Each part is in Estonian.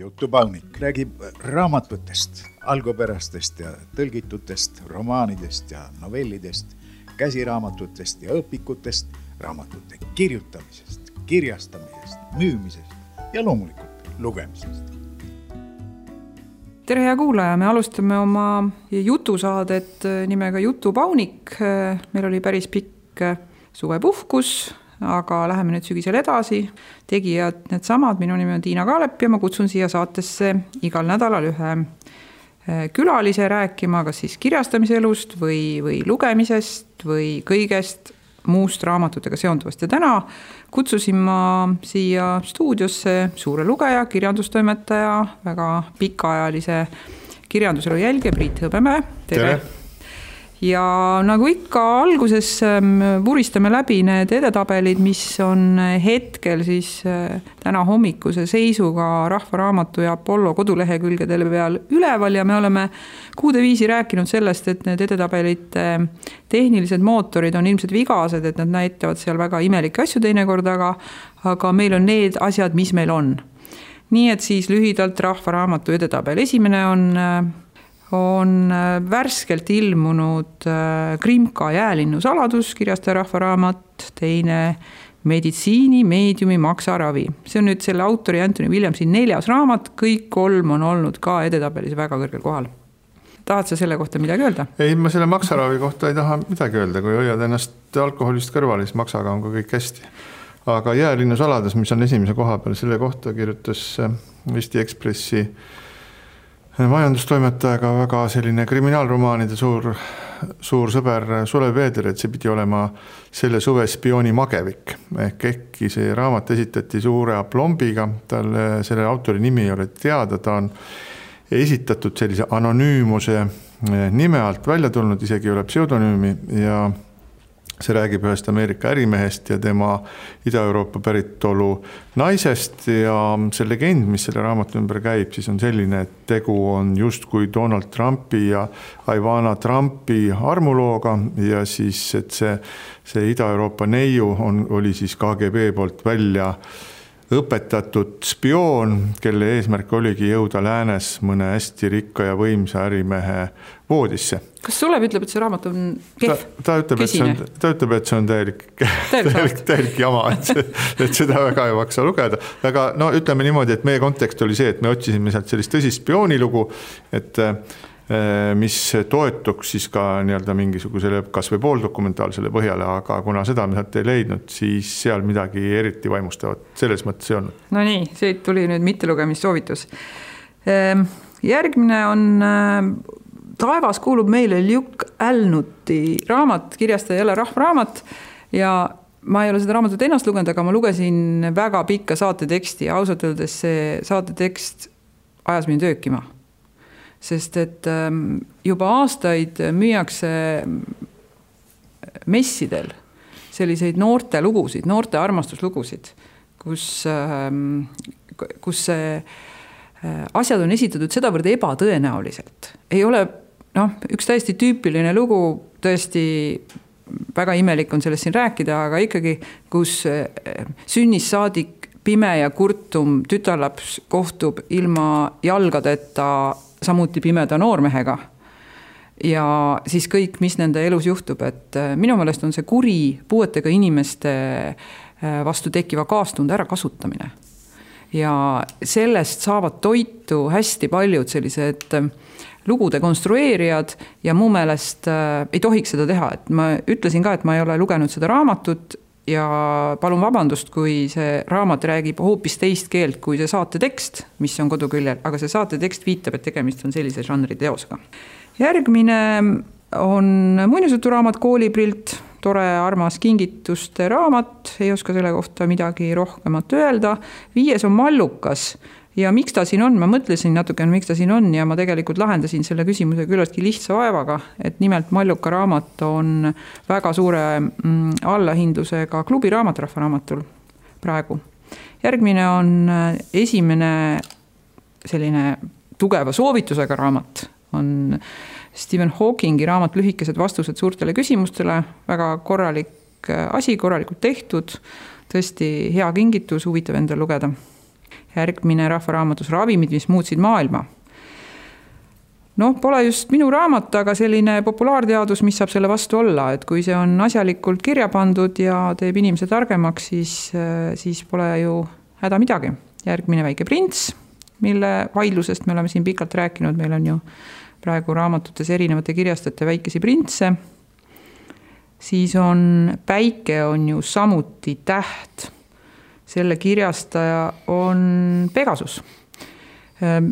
Jutupaunik räägib raamatutest, algupärastest ja tõlgitutest, romaanidest ja novellidest, käsiraamatutest ja õpikutest, raamatute kirjutamisest, kirjastamisest, müümisest ja loomulikult lugemisest. Tere hea kuulaja, me alustame oma jutusaadet nimega Jutupaunik. Meil oli päris pikk suvepuhkus, aga läheme nüüd sügisel edasi. Tegijad need samad, minu nimi on Tiina Kaalep ja ma kutsun siia saatesse igal nädalal ühe külalise rääkima, kas siis kirjastamise elust või lugemisest või kõigest muust raamatutega seonduvast. Ja täna kutsusin ma siia stuudiosse suure lugeja, kirjandustoimetaja, väga pikaajalise kirjanduselu jälge Priit Hõbemäe. Tere! Ja nagu ikka alguses vuristame läbi need edetabelid, mis on hetkel siis täna hommikuse seisuga Rahva Raamatu ja Apollo kodulehekülgedele peal üleval ja me oleme kuude viisi rääkinud sellest, et need edetabelite tehnilised mootorid on ilmselt vigased, et nad näitavad seal väga imelikke asju teinekord, aga meil on need asjad, mis meil on. Nii et siis lühidalt Rahva Raamatu edetabel. Esimene on värskelt ilmunud Krimka Jäälinnu saladus, kirjastaja Rahva Raamat, teine meditsiini, meediumi, maksaravi. See on nüüd selle autori Anthony Williamsi 4. raamat, kõik 3 on olnud ka edetabelis väga kõrgel kohal. Tahad sa selle kohta midagi öelda? Ei, ma selle maksaravi kohta ei taha midagi öelda, kui hoiad ennast alkoholist kõrval, siis maksaga on ka kõik hästi. Aga Jäälinnu saladus, mis on esimese koha peal, selle kohta kirjutas Eesti Ekspressi majandustoimetajaga väga selline kriminaalromaanide suur sõber Sulev Veeder, et see pidi olema selle suve spiooni magevik. Ehkki see raamat esitati suure aplombiga, selle autori nimi ei ole teada, ta on esitatud sellise anonüümuse nime alt välja tulnud, isegi ei ole pseudonüümi ja see räägib ühest Ameerika ärimehest ja tema Ida-Euroopa päritolu naisest ja see legend, mis selle raamatu ümber käib, siis on selline, et tegu on justkui Donald Trumpi ja Ivana Trumpi armulooga ja siis, et see Ida-Euroopa neiu oli siis KGB poolt välja õpetatud spioon, kelle eesmärk oligi jõuda läänes mõne hästi rikka ja võimsa ärimehe voodisse. Kas Sulev ütleb, et see raamat on kehv? Ta ütleb, et see on täielik jama, et seda väga ei maksa lugeda. Aga no ütleme niimoodi, et meie kontekst oli see, et me otsisime sealt sellist tõsist spioonilugu, et mis toetuks siis ka nii-öelda mingisugusele kas või pooldokumentaalsele põhjale, aga kuna seda me sealt ei leidnud, siis seal midagi eriti vaimustavat selles mõttes ei olnud. No nii, see tuli nüüd mittelugemissoovitus. Järgmine on Taevas kuulub meile Luke Alnuti raamat, kirjastaja jälle Rahva Raamat ja ma ei ole seda raamatut ennast lugenud, aga ma lugesin väga pikka saateteksti ja ausalt öeldes see saatetekst ajas mind öökima. Sest et juba aastaid müüakse messidel selliseid noorte lugusid, noorte armastuslugusid, kus asjad on esitatud sedavõrd ebatõenäoliselt. Ei ole üks täiesti tüüpiline lugu, tõesti väga imelik on sellest siin rääkida, aga ikkagi, kus sünnis saadik pime ja kurtum tütarlaps kohtub ilma jalgadeta samuti pimeda noormehega ja siis kõik, mis nende elus juhtub, et minu meelest on see kuri puuetega inimeste vastu tekkiva kaastunde ära kasutamine ja sellest saavad toitu hästi paljud sellised lugude konstrueerijad ja mu meelest ei tohiks seda teha, et ma ütlesin ka, et ma ei ole lugenud seda raamatut ja palun vabandust, kui see raamat räägib hoopis teist keelt kui see saatetekst, mis on koduküljel, aga see saatetekst viitab, et tegemist on sellise žanri teosega. Järgmine on muinasjuturaamat Kooliprilt, tore armas kingituste raamat, ei oska selle kohta midagi rohkemat öelda. 5. on Mallukas ja miks ta siin on, ma mõtlesin natukene, miks ta siin on ja ma tegelikult lahendasin selle küsimuse küllaltki lihtsa vaevaga, et nimelt Malluka raamat on väga suure allahindlusega klubiraamat Rahva Raamatul praegu. Järgmine on esimene selline tugeva soovitusega raamat, on Stephen Hawkingi raamat Lühikesed vastused suurtele küsimustele, väga korralik asi, korralikult tehtud, tõesti hea kingitus, huvitav endal lugeda. järgmine rahvaraamatus Ravimid, mis muutsid maailma. Pole just minu raamat, aga selline populaarteadus, mis saab selle vastu olla, et kui see on asjalikult kirja pandud ja teeb inimese targemaks, siis pole ju häda midagi. Järgmine Väike prints, mille vaidlusest me oleme siin pikalt rääkinud, meil on ju praegu raamatutes erinevate kirjastajate väikesi printse. Siis on Päike on ju samuti täht. Selle kirjastaja on Pegasus.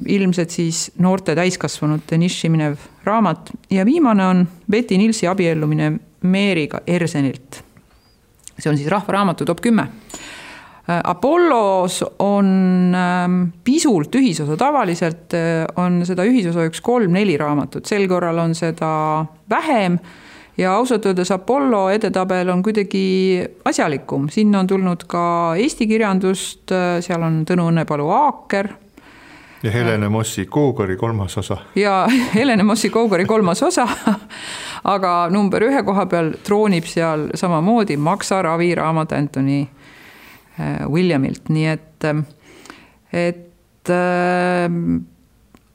Ilmselt siis noorte täiskasvanute niši minev raamat. Ja viimane on Betty Nilsi abiellumine Meeriga Ersenilt. See on siis rahvaraamatu top 10. Apollos on pisult ühisosa, tavaliselt on seda ühisosa 3-4 raamatut, sel korral on seda vähem ja ausalt öeldes Apollo edetabel on kuidagi asjalikum. Sinna on tulnud ka Eesti kirjandust, seal on Tõnu Õnnepalu Aaker. Ja Helene Mossi Kougari 3. osa. Ja Helene Mossi Kougari 3. osa, aga number 1 koha peal troonib seal samamoodi Maksa ravi raamat Anthony Williamilt. Nii et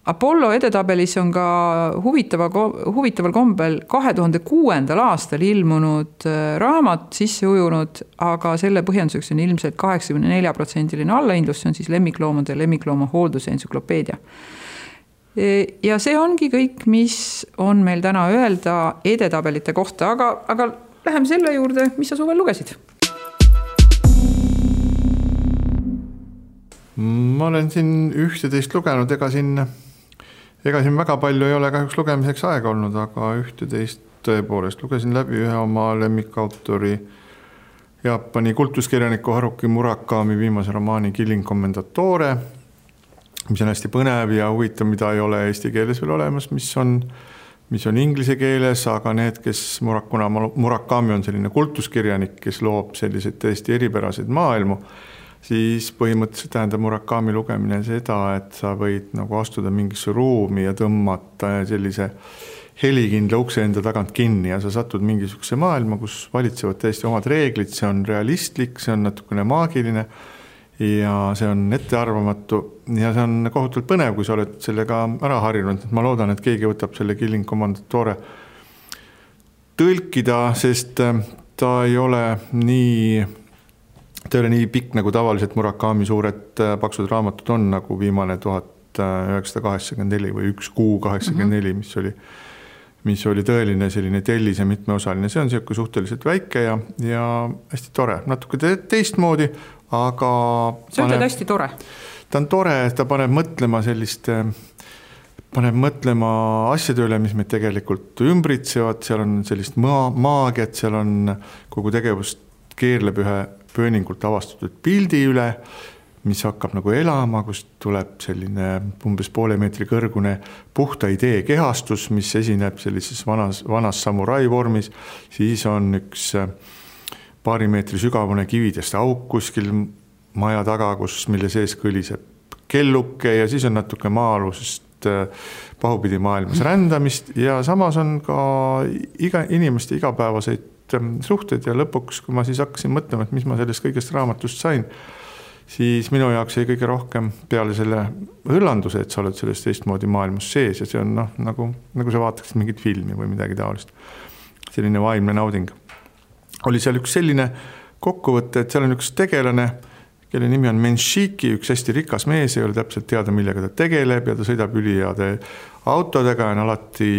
Apollo edetabelis on ka huvitaval kombel 2006. aastal ilmunud raamat sisse ujunud, aga selle põhjenduseks on ilmselt 84% allahindlus, see on siis lemmikloomade ja lemmiklooma hoolduse entsüklopeedia. Ja see ongi kõik, mis on meil täna öelda edetabelite kohta, aga läheme selle juurde, mis sa suvel lugesid? Ma olen siin 11 lugenud, ega siin väga palju ei ole kahjuks lugemiseks aega olnud, aga 11 tõepoolest lugesin läbi ühe oma lemmikautori Jaapani kultuskirjaniku Haruki Murakami viimase romaani Killing Commendatore, mis on hästi põnev ja huvitav, mida ei ole eesti keeles veel olemas, mis on inglise keeles, aga need, kes Murakami on selline kultuskirjanik, kes loob selliseid tõesti eripäraseid maailmu, siis põhimõtteliselt tähendab Murakami lugemine seda, et sa võid nagu astuda mingisse ruumi ja tõmmata sellise helikindla ukse enda tagant kinni ja sa satud mingisuguse maailma, kus valitsevad täiesti omad reeglid, see on realistlik, see on natukene maagiline ja see on ettearvamatu ja see on kohutavalt põnev, kui sa oled sellega ära harjunud. Ma loodan, et keegi võtab selle Killing Commendatore tõlkida, sest ta ei ole nii pikk, nagu tavaliselt Murakami suured paksud raamatud on, nagu viimane 1984 või 1Q84, mis oli tõeline selline tellis ja mitmeosaline. See on siuke suhteliselt väike ja hästi tore. Natuke teistmoodi, aga... See on hästi tore. Ta on tore, ta paneb mõtlema asjade üle, mis meid tegelikult ümbritsevad. Seal on sellist maagiat, seal on kogu tegevust keerleb ühe pööningult avastatud pildi üle, mis hakkab nagu elama, kus tuleb selline umbes poole meetri kõrgune puhta idee kehastus, mis esineb sellises vanas samurai vormis. Siis on üks paari meetri sügavune kividest auk kuskil maja taga, mille sees kõliseb kelluke ja siis on natuke maa-alusest pahupidi maailmas rändamist ja samas on ka inimeste igapäevaseid suhted ja lõpuks, kui ma siis hakkasin mõtlema, et mis ma sellest kõigest raamatust sain, siis minu jaoks jäi kõige rohkem peale selle hõllanduse, et sa oled sellest teistmoodi maailmas sees ja see on nagu sa vaataksid mingit filmi või midagi taolist. Selline vaimne nauding. Oli seal üks selline kokkuvõte, et seal on üks tegelane, kelle nimi on Menshiki, üks hästi rikas mees, ei ole täpselt teada, millega ta tegeleb ja ta sõidab üliheade autodega ja on alati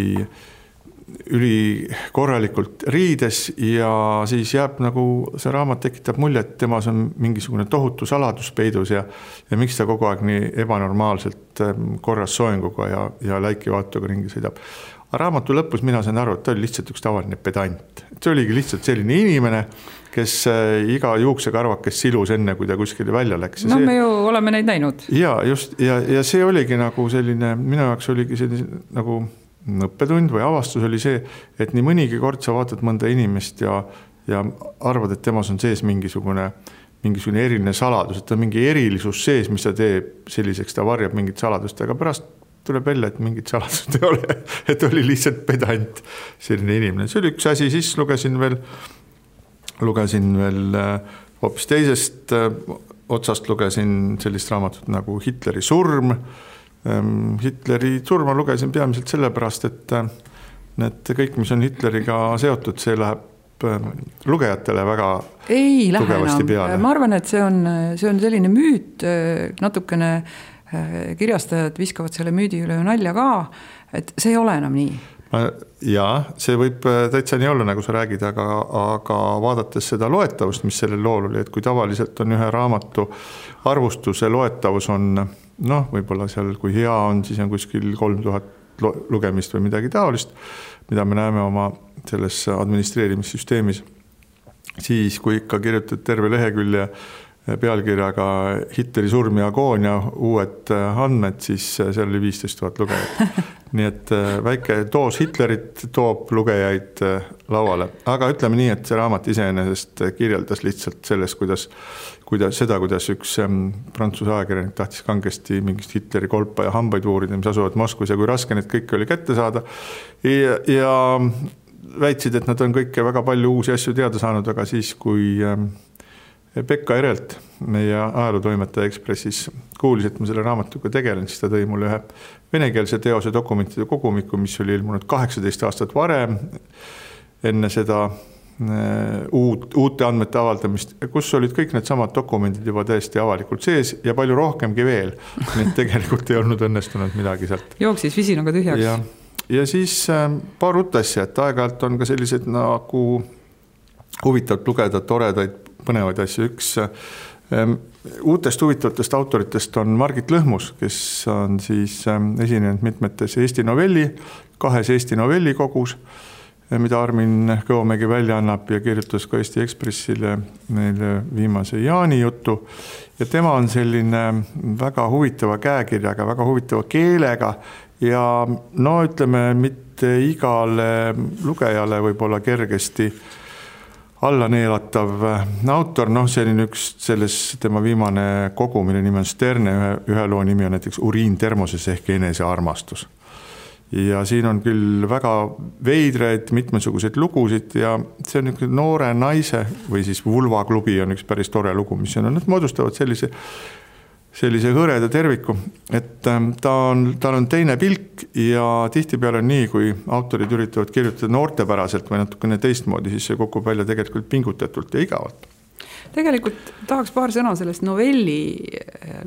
üli korralikult riides ja siis jääb nagu see raamat tekitab mulje, et temas on mingisugune tohutu saladus peidus ja miks ta kogu aeg nii ebanormaalselt korras soenguga ja läiki vaatuga ringi sõidab. Raamatu lõpus mina sain aru, et ta oli lihtsalt üks tavaline pedant. See oligi lihtsalt selline inimene, kes iga juuksekarvakes silus enne, kui ta kuskile välja läks. No me ju oleme neid näinud. Ja just, ja see oligi nagu selline, minu jaoks oligi selline nagu õppetund või avastus oli see, et nii mõnigi kord sa vaatad mõnda inimest ja arvad, et temas on sees mingisugune eriline saladus, et ta on mingi erilisus sees, mis ta teeb selliseks, ta varjab mingit saladust, aga pärast tuleb välja, et mingit saladust ei ole, et oli lihtsalt pedant selline inimene. See oli üks asi, siis lugesin veel hoopis teisest otsast lugesin sellist raamatut nagu Hitleri surm. Hitleri surma lugesin peamiselt sellepärast, et need kõik, mis on Hitleriga seotud, see läheb lugejatele väga tugevasti peale. Ma arvan, et see on selline müüt, natukene kirjastajad viskavad selle müüdi üle nalja ka, et see ei ole enam nii. Jaa, see võib täitsa nii olla, nagu sa räägid, aga vaadates seda loetavust, mis sellel lool oli, et kui tavaliselt on ühe raamatu arvustuse loetavus on, võib-olla seal, kui hea on, siis on kuskil 3000 lugemist või midagi taolist, mida me näeme oma selles administreerimissüsteemis. Siis, kui ikka kirjutad terve lehekülje pealkirjaga Hitleri surm ja agoonia, uued andmed, siis seal oli 15 000 lugejat. Nii et väike doos Hitlerit toob lugejaid lauale. Aga ütleme nii, et see raamat iseenesest kirjeldas lihtsalt sellest, kuidas üks Prantsuse ajakirjanik tahtis kangesti mingist Hitleri kolpa ja hambaid uurida, mis asuvad Moskvas ja kui raske need kõik oli kätte saada. Ja väitsid, et nad on kõike väga palju uusi asju teada saanud, aga siis, kui Pekka Erelt, meie ajalootoimetaja Ekspressis, kuulis, et ma selle raamatuga tegelen, siis ta tõi mulle ühe venekeelse teose dokumentide kogumiku, mis oli ilmunud 18 aastat varem, enne seda uute andmete avaldamist, kus olid kõik need samad dokumendid juba täiesti avalikult sees ja palju rohkemgi veel. Need tegelikult ei olnud õnnestunud midagi sealt. Jooksis visinaga tühjaks. Ja siis paar uut asja, et aeg-ajalt on ka sellised nagu huvitavalt lugeda toredaid põnevaid asju. Üks uutest huvitavatest autoritest on Margit Lõhmus, kes on siis esinenud mitmetes Eesti novelli, 2 Eesti novellikogus, mida Armin Kõomägi välja annab ja kirjutas ka Eesti Ekspressile neile viimase Jaani jutu. Ja tema on selline väga huvitava käekirjaga, väga huvitava keelega ja ütleme, mitte igale lugejale võib-olla kergesti alla neelatav autor, see on üks selles tema viimane kogu, mille nimi on Sterne, ühe loo nimi on näiteks Uriin termoses ehk enesearmastus. Ja siin on küll väga veidraid mitmesuguseid lugusid ja see on üks noore naise või siis Vulvaklubi on üks päris tore lugu, mis on, nad moodustavad sellise hõreda terviku, et tal on teine pilk ja tihtipeale on nii, kui autorid üritavad kirjutada noortepäraselt või natukene teistmoodi, siis see kukub välja tegelikult pingutatult ja igavalt. Tegelikult tahaks paar sõna sellest novelli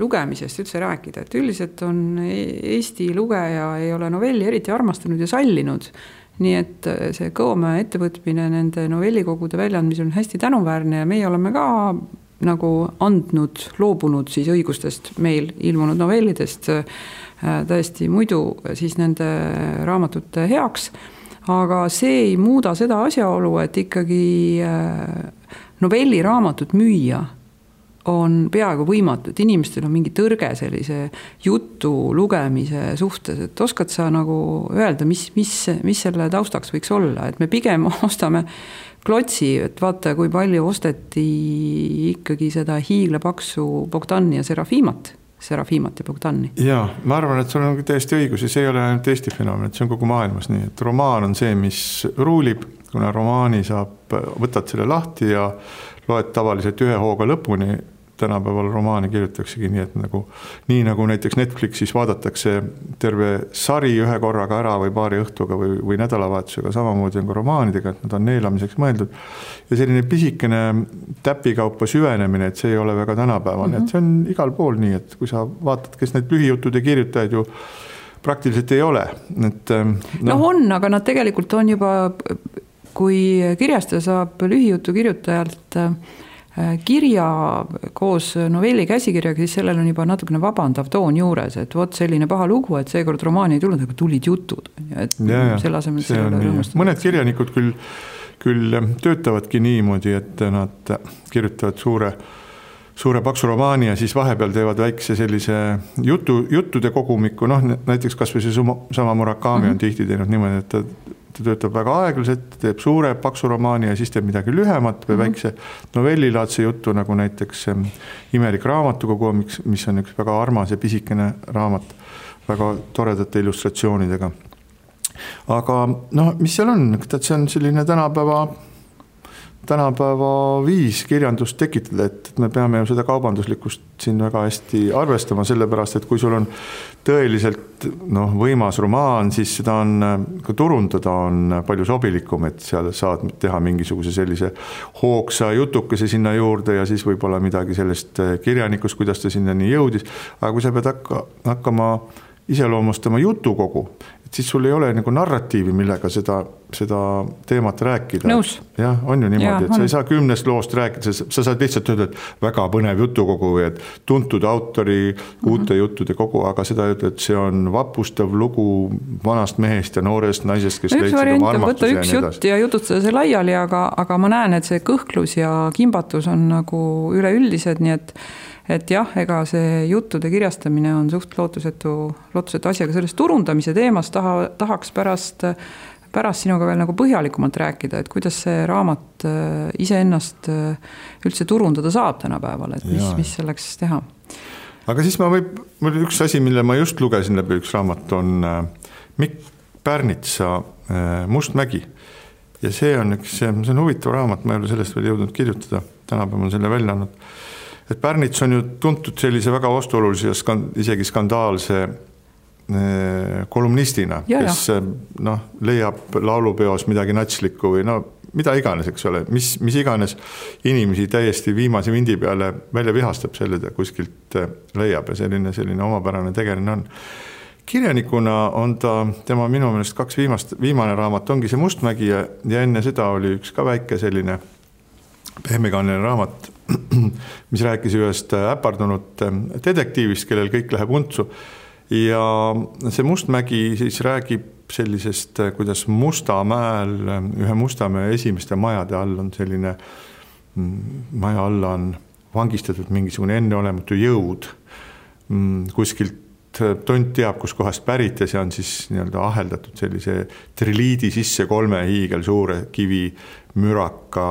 lugemisest üldse rääkida, et üldiselt on Eesti lugeja ei ole novelli eriti armastanud ja sallinud, nii et see Kõomäe ettevõtmine nende novellikogude väljaandmisel on hästi tänuväärne ja meie oleme ka nagu loobunud siis õigustest meil ilmunud novellidest täiesti muidu siis nende raamatute heaks, aga see ei muuda seda asjaolu, et ikkagi novelliraamatut müüa on peaaegu võimatu, et inimestel on mingi tõrge sellise jutu lugemise suhtes, et oskad sa nagu öelda, mis selle taustaks võiks olla, et me pigem ostame klotsi, et vaata, kui palju osteti ikkagi seda hiiglapaksu Bogdani ja Serafimat ja Bogdani. Jaa, ma arvan, et sul on täiesti õigus ja see ei ole ainult Eesti fenomen, et see on kogu maailmas nii, et romaan on see, mis ruulib, kuna romaani võtad selle lahti ja loed tavaliselt ühe hooga lõpuni. Tänapäeval romaani kirjutaksegi nii, et nii nagu näiteks Netflixis vaadatakse terve sari ühe korraga ära või paari õhtuga või nädalavahetusega, samamoodi on ka romaanidega, et nad on neelamiseks mõeldud. Ja selline pisikene täpikaupa süvenemine, et see ei ole väga tänapäevane, et see on igal pool nii, et kui sa vaatad, kes need lühijutude kirjutajaid ju praktiliselt ei ole. Et, on, aga nad tegelikult on juba, kui kirjastaja saab lühijutu kirjutajalt kirja koos novelli käsikirjaga, siis sellel on juba natukene vabandav toon juures, et vot selline paha lugu, et seekord romaani ei tulnud, aga tulid jutud. Et selle asemel mõned kirjanikud küll töötavadki niimoodi, et nad kirjutavad suure paksu romaani ja siis vahepeal teevad väikse sellise juttude kogumiku, näiteks kas või see sama Murakami on tihti teinud niimoodi, et ta töötab väga aeglaselt, teeb suure paksu romaani ja siis teeb midagi lühemat või väikse novellilaadse juttu, nagu näiteks Imelik raamatukogu, mis on üks väga armas ja pisikene raamat väga toredate illustratsioonidega. Aga mis seal on? See on selline tänapäeva viis kirjandust tekitada, et me peame ju seda kaubanduslikkust siin väga hästi arvestama, sellepärast, et kui sul on tõeliselt võimas romaan, siis seda on, ka turundada on palju sobilikum, et seal saad teha mingisuguse sellise hoogsa jutukese sinna juurde ja siis võib-olla midagi sellest kirjanikust, kuidas ta sinnani jõudis. Aga kui sa pead hakkama iseloomustama jutukogu, et siis sul ei ole nagu narratiivi, millega seda teemat rääkida. Nõus. Jah, on ju niimoodi, et sa ei saa 10 loost rääkida, sa saad lihtsalt öelda, et väga põnev jutukogu või et tuntud autori uute juttude kogu, aga seda öelda, et see on vapustav lugu vanast mehest ja noorest naisest, kes üks variant on võtta üks jutt ja jutustada see laiali, aga ma näen, et see kõhklus ja kimbatus on nagu üleüldised, nii et jah, ega see juttude kirjastamine on suht lootusetu asi, aga sellest turundamise teemast tahaks pärast sinuga veel nagu põhjalikumalt rääkida, et kuidas see raamat iseennast üldse turundada saab tänapäeval, et mis selleks teha. Aga siis mul üks asi, mille ma just lugesin läbi, üks raamat on Mikk Pärnitsa Mustmägi. Ja see on huvitav raamat, ma ei ole sellest veel jõudnud kirjutada, tänapäeval on selle välja andnud. Et Pärnits on ju tuntud sellise väga vastuolulise ja isegi skandaalse kolumnistina, kes leiab laulupeos midagi natslikku või mida iganes, eks ole, mis iganes inimesi täiesti viimase vindi peale välja vihastab selle kuskilt leiab ja selline omapärane tegeline on. Kirjanikuna on tema minu meelest viimane raamat ongi see Mustmägi ja enne seda oli üks ka väike selline pehmekaaneline raamat, mis rääkis ühest äpardunud detektiivist, kellel kõik läheb untsu. Ja see Mustmägi siis räägib sellisest, kuidas Mustamäel, ühe Mustamäe esimeste majade all on selline, maja alla on vangistatud mingisugune enneolematu jõud. Kuskilt tont teab, kus kohast pärit ja see on siis nii-öelda aheldatud sellise triliidi sisse 3 hiigel suure kivi müraka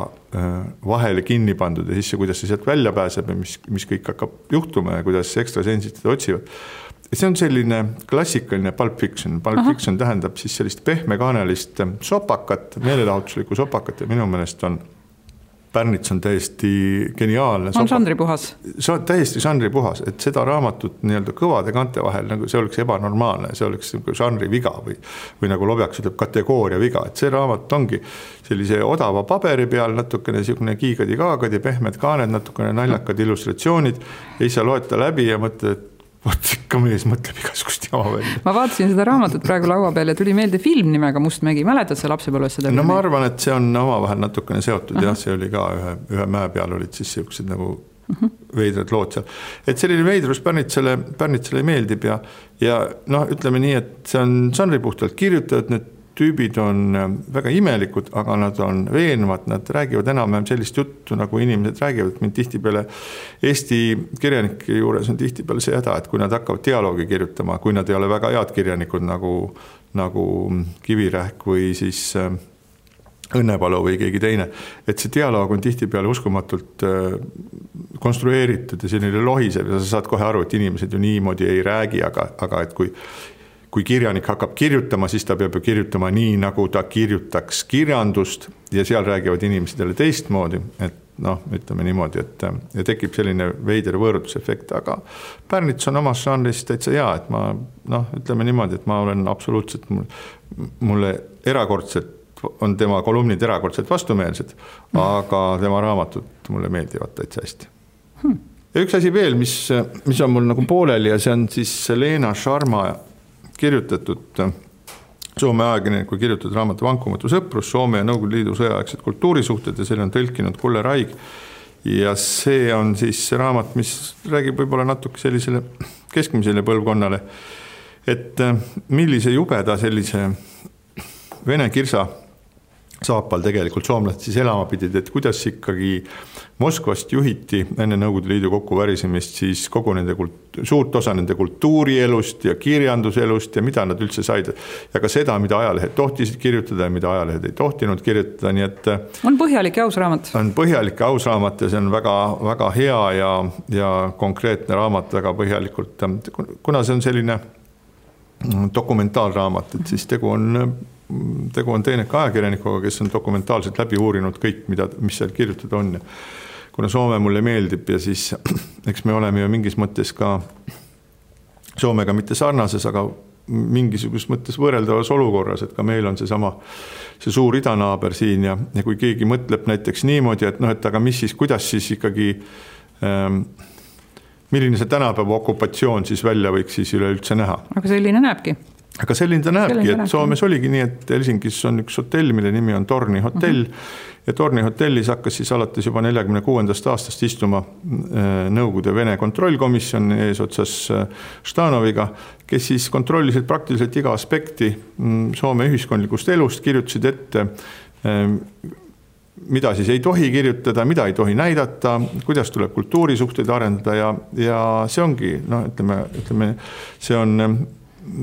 vahele kinni pandud ja siis kuidas see sealt välja pääseb ja mis kõik hakkab juhtuma ja kuidas ekstrasensid seda otsivad. See on selline klassikaline Pulp Fiction. Pulp Fiction tähendab siis sellist pehmekaanelist sopakat, meelelahutuslikku sopakat ja minu meelest on Pärnits on täiesti geniaalne. On žanripuhas. See on täiesti žanripuhas, et seda raamatut nii-öelda kõvade kante vahel, nagu see oleks ebanormaalne, see oleks žanri viga või nagu Lobjaks ütleb kategooria viga, et see raamat ongi sellise odava paberi peal, natukene siukene kiigadi-kaagadi, pehmed kaaned, natukene naljakad illustratsioonid ja siis sa loed ta läbi ja mõtled, et ikka mees mõtleb igasugust jama välja. Ma vaatasin seda raamatut praegu laua peal ja tuli meelde film nimega Mustmägi. Mäletad sa lapsepõlves seda? No ma arvan, et see on omavahel natukene seotud. Jah, see oli ka ühe mäe peal olid siis sellised nagu veidrad lood seal. Et selline veidrus Pärnitsale meeldib ja ütleme nii, et see on žanripuhtalt kirjutatud, need tüübid on väga imelikud, aga nad on veenvad, nad räägivad enam sellist juttu, nagu inimesed räägivad. Mind tihtipeale Eesti kirjanike juures on tihtipeale see häda, et kui nad hakkavad dialoogi kirjutama, kui nad ei ole väga head kirjanikud nagu Kivirähk või siis Õnnepalu või keegi teine, et see dialoog on tihtipeale uskumatult konstrueeritud ja selline lohisev ja sa saad kohe aru, et inimesed ju niimoodi ei räägi, aga et kui kirjanik hakkab kirjutama, siis ta peab ju kirjutama nii, nagu ta kirjutaks kirjandust ja seal räägivad inimesed jälle teistmoodi, et ütleme niimoodi, et tekib selline veider võõrutusefekt, aga Pärnits on omas žanris täitsa hea, et ma ütleme niimoodi, et ma olen absoluutselt, mulle erakordselt on tema kolumnid erakordselt vastumeelsed, aga tema raamatud mulle meeldivad täitsa hästi. Ja üks asi veel, mis on mul nagu pooleli ja see on siis Leena Sharma kirjutatud Soome ajakirjaniku kirjutatud raamatu Vankumatu sõprus, Soome ja Nõukogude Liidu sõjaaegsed kultuurisuhted ja selle on tõlkinud Kulle Raig. Ja see on siis raamat, mis räägib võib-olla natuke sellisele keskmisele põlvkonnale, et millise jubeda sellise vene kirsa saapal tegelikult soomlased siis elama pidid, et kuidas ikkagi Moskvast juhiti enne Nõukogude Liidu kokkuvärisemist siis kogu nende suurt osa nende kultuurielust ja kirjanduselust ja mida nad üldse said. Ja ka seda, mida ajalehed tohtisid kirjutada ja mida ajalehed ei tohtinud kirjutada. Nii et on põhjalik ja aus raamat. On põhjalik ja aus raamat ja see on väga, väga hea ja konkreetne raamat väga põhjalikult. Kuna see on selline dokumentaalraamat, et siis tegu on tegu on teeneka ajakirjanikuga, kes on dokumentaalselt läbi uurinud kõik, mis seal kirjutada on. Kuna Soome mulle meeldib ja siis eks me oleme ju mingis mõttes ka Soomega mitte sarnases, aga mingisugust mõttes võrreldavas olukorras, et ka meil on see suur idanaaber siin ja kui keegi mõtleb näiteks niimoodi, et et aga mis siis, kuidas siis ikkagi milline see tänapäeva okupatsioon siis välja võiks siis üleüldse näha. Aga selline näebki. Aga selline ta näebki, et Soomes oligi nii, et Helsingis on üks hotell, mille nimi on Torni hotell ja Torni hotellis hakkas siis alates juba 46. aastast istuma Nõukogude Vene kontrollkomisjon eesotsas Štanoviga, kes siis kontrollisid praktiliselt iga aspekti Soome ühiskondlikust elust, kirjutasid ette, mida siis ei tohi kirjutada, mida ei tohi näidata, kuidas tuleb kultuurisuhteid arendada ja see ongi, ütleme, see on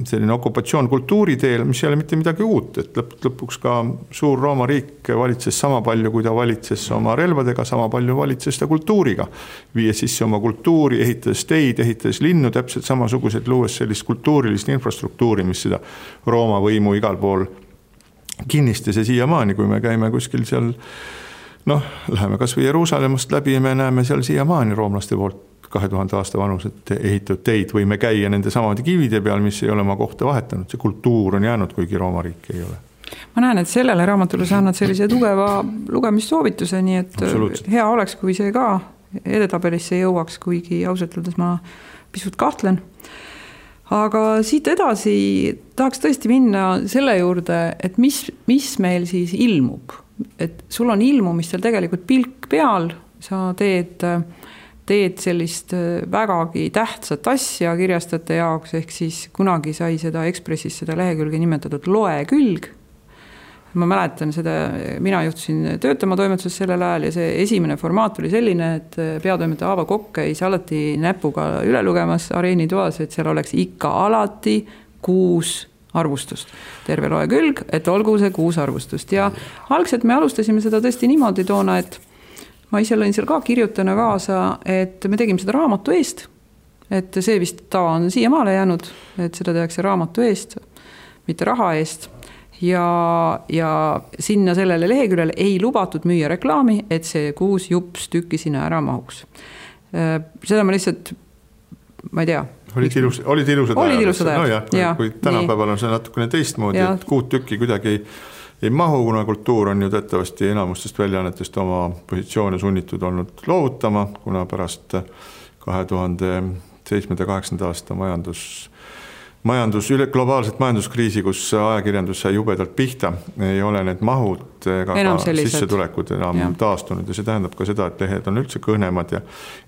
selline okupatsioon kultuuri teel, mis ei ole mitte midagi uut, et lõpuks ka suur Rooma riik valitses sama palju, kui ta valitses oma relvadega, sama palju valitses ta kultuuriga. Viies sisse oma kultuuri, ehitades teid, ehitades linnu, täpselt samasugused, luues sellist kultuurilist infrastruktuuri, mis seda Rooma võimu igal pool kinnistas ja siiamaani, kui me käime kuskil seal, läheme kas või Jeruusalemmast läbi ja me näeme seal siiamaani roomlaste poolt 2000 aasta vanused ehitatud teid, võime käia nende samade kivide peal, mis ei ole oma kohta vahetanud. See kultuur on jäänud, kuigi Rooma riik ei ole. Ma näen, et sellele raamatule sa annad sellise tugeva lugemissoovituse, nii et hea oleks, kui see ka edetabelisse jõuaks, kuigi ausalt öeldes ma pisut kahtlen. Aga siit edasi tahaks tõesti minna selle juurde, et mis meil siis ilmub. Et sul on ilmumistel tegelikult pilk peal, sa teed sellist vägagi tähtsat asja kirjastajate jaoks, ehk siis kunagi sai seda Ekspressis seda lehekülge nimetatud loekülg. Ma mäletan seda, mina juhtusin töötama toimetuses sellel ajal ja see esimene formaat oli selline, et peatoimetaja Aavo Kokk käis alati näpuga üle lugemas areenitoas, et seal oleks ikka alati 6 arvustust. Terve loekülg, et olgu see 6 arvustust. Ja algselt me alustasime seda tõesti niimoodi toona, et ma ise lõin seal ka kirjutana kaasa, et me tegime seda raamatu eest, et see vist tava on siiamaale jäänud, et seda tehakse raamatu eest, mitte raha eest ja sinna sellele leheküljele ei lubatud müüa reklaami, et see 6 jups tükki sinna ära mahuks. Seda ma lihtsalt, ma ei tea. Olid ilusad ajad. Kui tänapäeval on see natukene teistmoodi, et 6 tükki kuidagi ei mahu, kuna kultuur on ju teatavasti enamustest väljaannetest oma positsioone sunnitud olnud loovutama, kuna pärast 2007-2008 aasta globaalset majanduskriisi, kus ajakirjandus sai jubedalt pihta, ei ole need mahud ega ka sissetulekud enam taastunud ja see tähendab ka seda, et lehed on üldse kõhnemad ja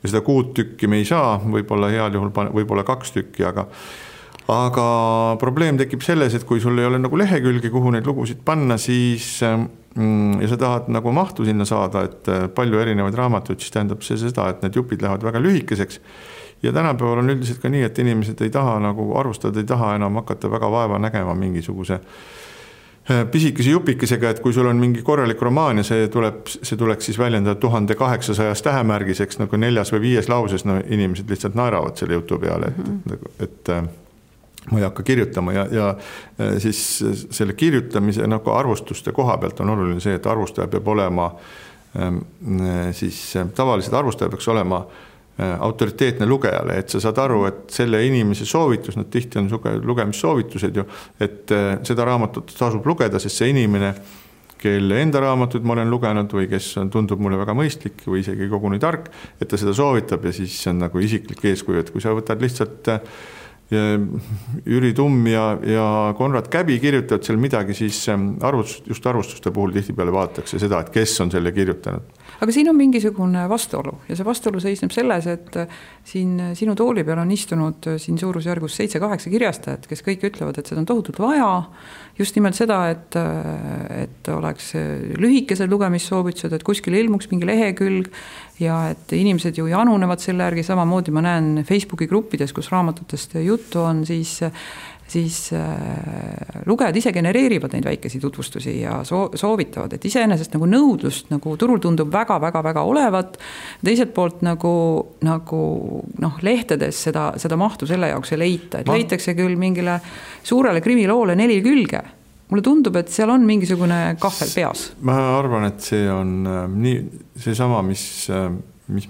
seda 6 tükki me ei saa, võib-olla heal juhul võib-olla 2 tükki, aga probleem tekib selles, et kui sul ei ole nagu lehekülgi, kuhu neid lugusid panna, siis ja sa tahad nagu mahtu sinna saada, et palju erinevaid raamatuid, siis tähendab see seda, et need jupid lähevad väga lühikeseks. Ja tänapäeval on üldiselt ka nii, et inimesed ei taha nagu arvustada, ei taha enam hakata väga vaeva nägema mingisuguse pisikese jupikesega, et kui sul on mingi korralik romaan ja see tuleks siis väljendada 1800 tähemärgiseks nagu 4. või 5. lauses, inimesed lihtsalt naeravad selle jutu peale, et ma ei hakka kirjutama ja siis selle kirjutamise nagu arvustuste koha pealt on oluline see, et arvustaja peab olema siis tavaliselt arvustaja peaks olema autoriteetne lugejale, et sa saad aru, et selle inimese soovitus, nad tihti on lugemissoovitused ju, et seda raamatut tasub lugeda, sest see inimene, kelle enda raamatud ma olen lugenud või kes tundub mulle väga mõistlik või isegi koguni tark, et ta seda soovitab ja siis see on nagu isiklik eeskuju, et kui sa võtad lihtsalt Jüri Tumm ja Konrad Käbi kirjutavad seal midagi, siis just arvustuste puhul tihtipeale vaadatakse seda, et kes on selle kirjutanud. Aga siin on mingisugune vastuolu ja see vastuolu seisneb selles, et siin sinu tooli peal on istunud siin suurusjärgus 7-8 kirjastajat, kes kõik ütlevad, et seda on tohutult vaja, just nimelt seda, et oleks lühikesed lugemissoovitused, et kuskil ilmuks mingi lehekülg ja et inimesed ju janunevad selle järgi, samamoodi ma näen Facebooki gruppides, kus raamatutest juttu on, siis lugejad ise genereerivad neid väikesi tutvustusi ja soovitavad, et iseenesest nagu nõudlust nagu turul tundub väga olevat. Teiselt poolt nagu lehtedes seda mahtu selle jaoks ei leita, et leitakse küll mingile suurele krimiloole 4 külge, mulle tundub, et seal on mingisugune kahvel peas. Ma arvan, et see on see sama, mis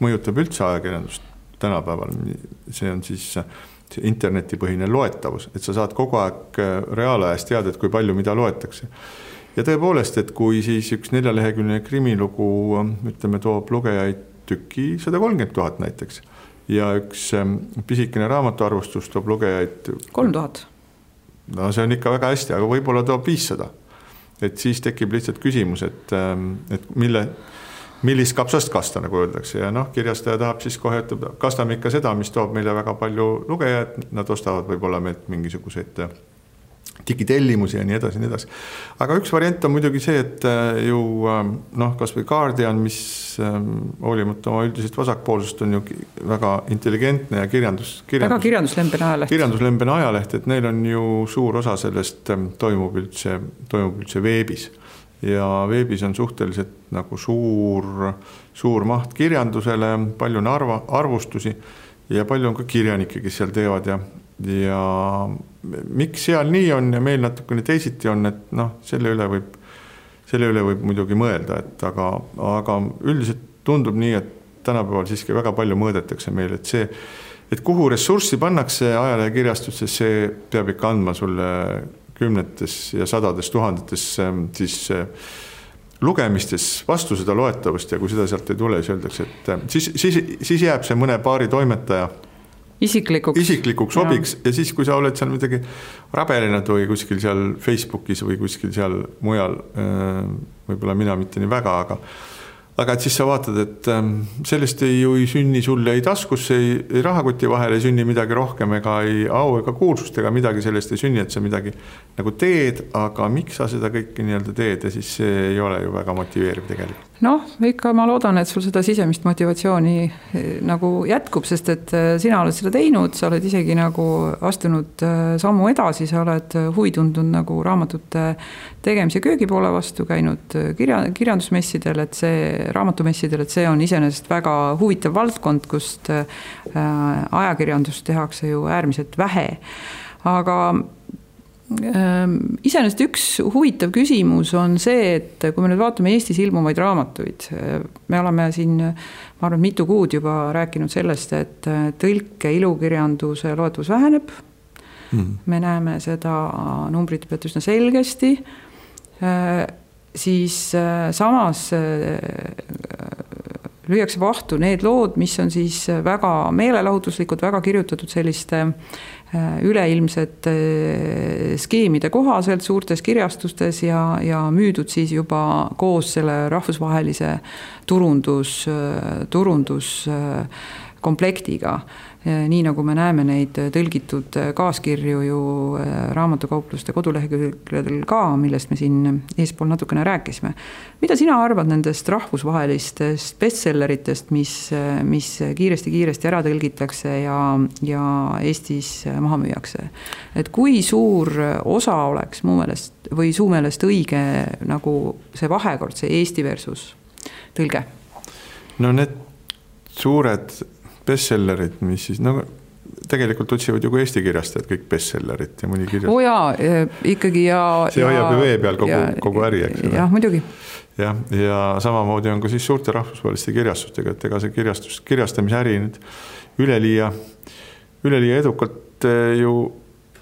mõjutab üldse ajakirjandust tänapäeval. See on siis see internetipõhine loetavus, et sa saad kogu aeg reaalajas teada, et kui palju mida loetakse. Ja tõepoolest, et kui siis üks 4-leheküljeline krimilugu, ütleme, toob lugejaid tüki 130 000 näiteks ja üks pisikene raamatuarvustus toob lugejaid 3000. No see on ikka väga hästi, aga võib-olla toob 500. Et siis tekib lihtsalt küsimus, et millist kapsast kasta, nagu öeldakse. Ja kirjastaja tahab siis kohe, et kastame ikka seda, mis toob meile väga palju lugejaid. Nad ostavad võib-olla meilt mingisuguseid digitellimusi ja nii edasi, nii edasi. Aga üks variant on muidugi see, et ju kas või Guardian, mis hoolimata oma üldisest vasakpoolsust on ju väga intelligentne ja väga kirjanduslembene ajaleht. Kirjanduslembene ajaleht, et neil on ju suur osa sellest toimub üldse veebis. Ja veebis on suhteliselt nagu suur maht kirjandusele, palju on arvustusi ja palju on ka kirjanikke, kes seal teevad ja miks seal nii on ja meil natukene teisiti on, et selle üle võib muidugi mõelda, et aga üldiselt tundub nii, et tänapäeval siiski väga palju mõõdetakse meil, et see, et kuhu ressurssi pannakse ajalejakirjastusse, see peab ikka andma sulle 10 ja 100 000 siis lugemistes vastu seda loetavust ja kui seda sealt ei tule, siis öeldakse, et siis jääb see mõne paari toimetaja isiklikuks hobiks ja siis, kui sa oled seal midagi rabelinad või kuskil seal Facebookis või kuskil seal mujal, võib-olla mina mitte nii väga, aga et siis sa vaatad, et sellest ei sünni sulle ei taskusse, ei rahakoti vahel ei sünni midagi rohkem ega ei au ega kuulsust ega midagi sellest ei sünni, et sa midagi nagu teed, aga miks sa seda kõike nii-öelda teed ja siis see ei ole ju väga motiveeriv tegelikult. Ikka ma loodan, et sul seda sisemist motivatsiooni nagu jätkub, sest et sina oled seda teinud, sa oled isegi nagu astunud sammu edasi, sa oled huvi tundnud nagu raamatute tegemise köögipoole vastu, käinud kirjandusmessidel, et see raamatumessidel, et see on iseenesest väga huvitav valdkond, kust ajakirjandust tehakse ju äärmiselt vähe. Aga iseenesest üks huvitav küsimus on see, et kui me nüüd vaatame Eestis ilmuvaid raamatuid, me oleme siin, ma arvan, mitu kuud juba rääkinud sellest, et tõlke ilukirjanduse loetavus väheneb. Me näeme seda numbrit pealt üsna selgesti. Siis samas lüüakse vahtu need lood, mis on siis väga meelelahutuslikud, väga kirjutatud selliste üleilmsete skeemide kohaselt suurtes kirjastustes ja müüdud siis juba koos selle rahvusvahelise turunduskomplektiga. Nii nagu me näeme neid tõlgitud kaaskirju ju raamatukaupluste kodulehekülgedel ka, millest me siin eespool natukene rääkisime. Mida sina arvad nendest rahvusvahelistest bestselleritest, mis kiiresti ära tõlgitakse ja Eestis maha müüakse? Et kui suur osa oleks mu meelest või su meelest õige nagu see vahekord, see Eesti versus tõlge? Need suured bestsellerid, mis siis, tegelikult otsivad ju kui Eesti kirjastajad kõik bestsellerid ja mõni kirjastajad. Ikkagi ja... See hoiab ju vee peal kogu äri, eks. Jah, muidugi. Ja samamoodi on ka siis suurte rahvusvaheliste kirjastustega, et ega see kirjastamise äri nüüd üleliia edukalt ju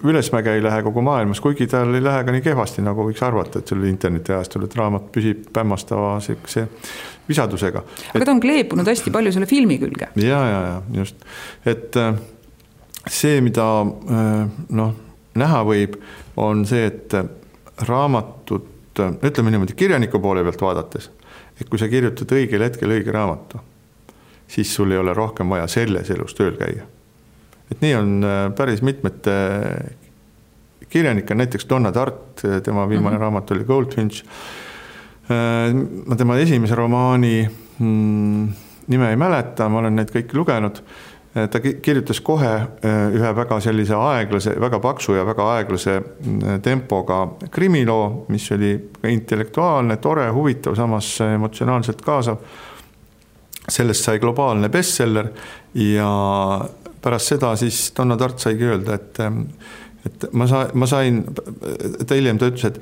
ülesmäge ei lähe kogu maailmas, kuigi tal ei lähe ka nii kehvasti, nagu võiks arvata, et selle interneti ajastul, et raamat püsib pämmastava visadusega. Aga ta on kleepunud hästi palju selle filmi külge. Ja, just. Et see, mida näha võib, on see, et raamatut, ütleme niimoodi, kirjaniku poole pealt vaadates, et kui sa kirjutad õigel hetkel õige raamatu, siis sul ei ole rohkem vaja selles elus tööl käia. Et nii on päris mitmete kirjanikke, näiteks Donna Tartt, tema viimane raamat oli Goldfinch. Ma tema esimese romaani nime ei mäleta, ma olen neid kõiki lugenud. Ta kirjutas kohe ühe väga sellise aeglase, väga paksu ja väga aeglase tempoga krimiloo, mis oli intellektuaalne, tore, huvitav, samas emotsionaalselt kaasav. Sellest sai globaalne bestseller ja pärast seda siis Donna Tartt saigi öelda, et ma sain, ta hiljem ta ütles, et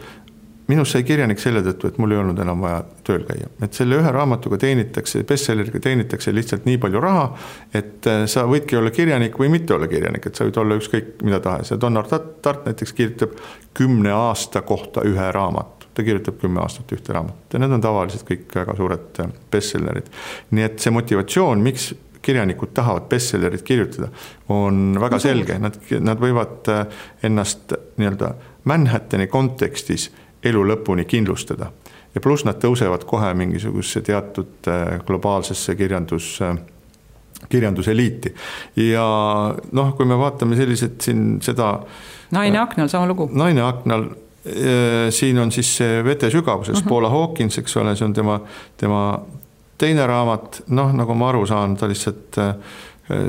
minus sai kirjanik selle tõttu, et mul ei olnud enam vaja tööl käia. Et selle ühe raamatuga teenitakse, bestselleriga teenitakse lihtsalt nii palju raha, et sa võidki olla kirjanik või mitte olla kirjanik, et sa võid olla ükskõik mida tahes. Ja Donner Tart näiteks kirjutab 10 aasta kohta ühe raamatu. Ta kirjutab 10 aastat ühte raamatut ja need on tavaliselt kõik väga suured bestsellerid. Nii et see motivatsioon, miks kirjanikud tahavad bestsellerit kirjutada, on väga selge. Nad võivad ennast nii-öelda Manhattani kontekstis elu lõpuni kindlustada. Ja pluss nad tõusevad kohe mingisugusesse teatud globaalsesse kirjanduseliiti. Ja kui me vaatame sellised siin seda... Naine aknal, sama lugu. Naine aknal, siin on siis see Vete sügavuses, Paula Hawkins, eks ole, see on tema teine raamat, nagu ma aru saan, ta lihtsalt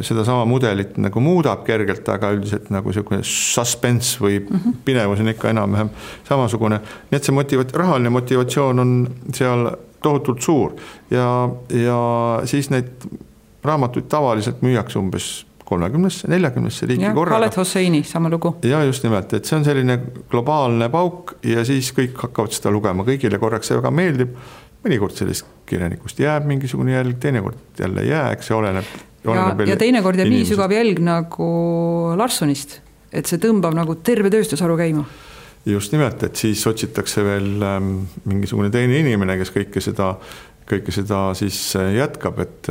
seda sama mudelit nagu muudab kergelt, aga üldiselt nagu selline suspense või pinevus on ikka enam-vähem samasugune. Nii et see rahaline motivatsioon on seal tohutult suur ja siis neid raamatuid tavaliselt müüakse umbes 30-40 riigi korraga. Khaled Hosseini, sama lugu. Ja just nimelt, et see on selline globaalne pauk ja siis kõik hakkavad seda lugema. Kõigile korraks see väga meeldib. Mõnikord sellest kirjanikust jääb mingisugune jälg, teinekord jälle jääks, see oleneb ja teinekord jääb nii sügav jälg nagu Larssonist, et see tõmbab nagu terve tööstusharu käima. Just nimelt, et siis otsitakse veel mingisugune teine inimene, kes kõike seda siis jätkab, et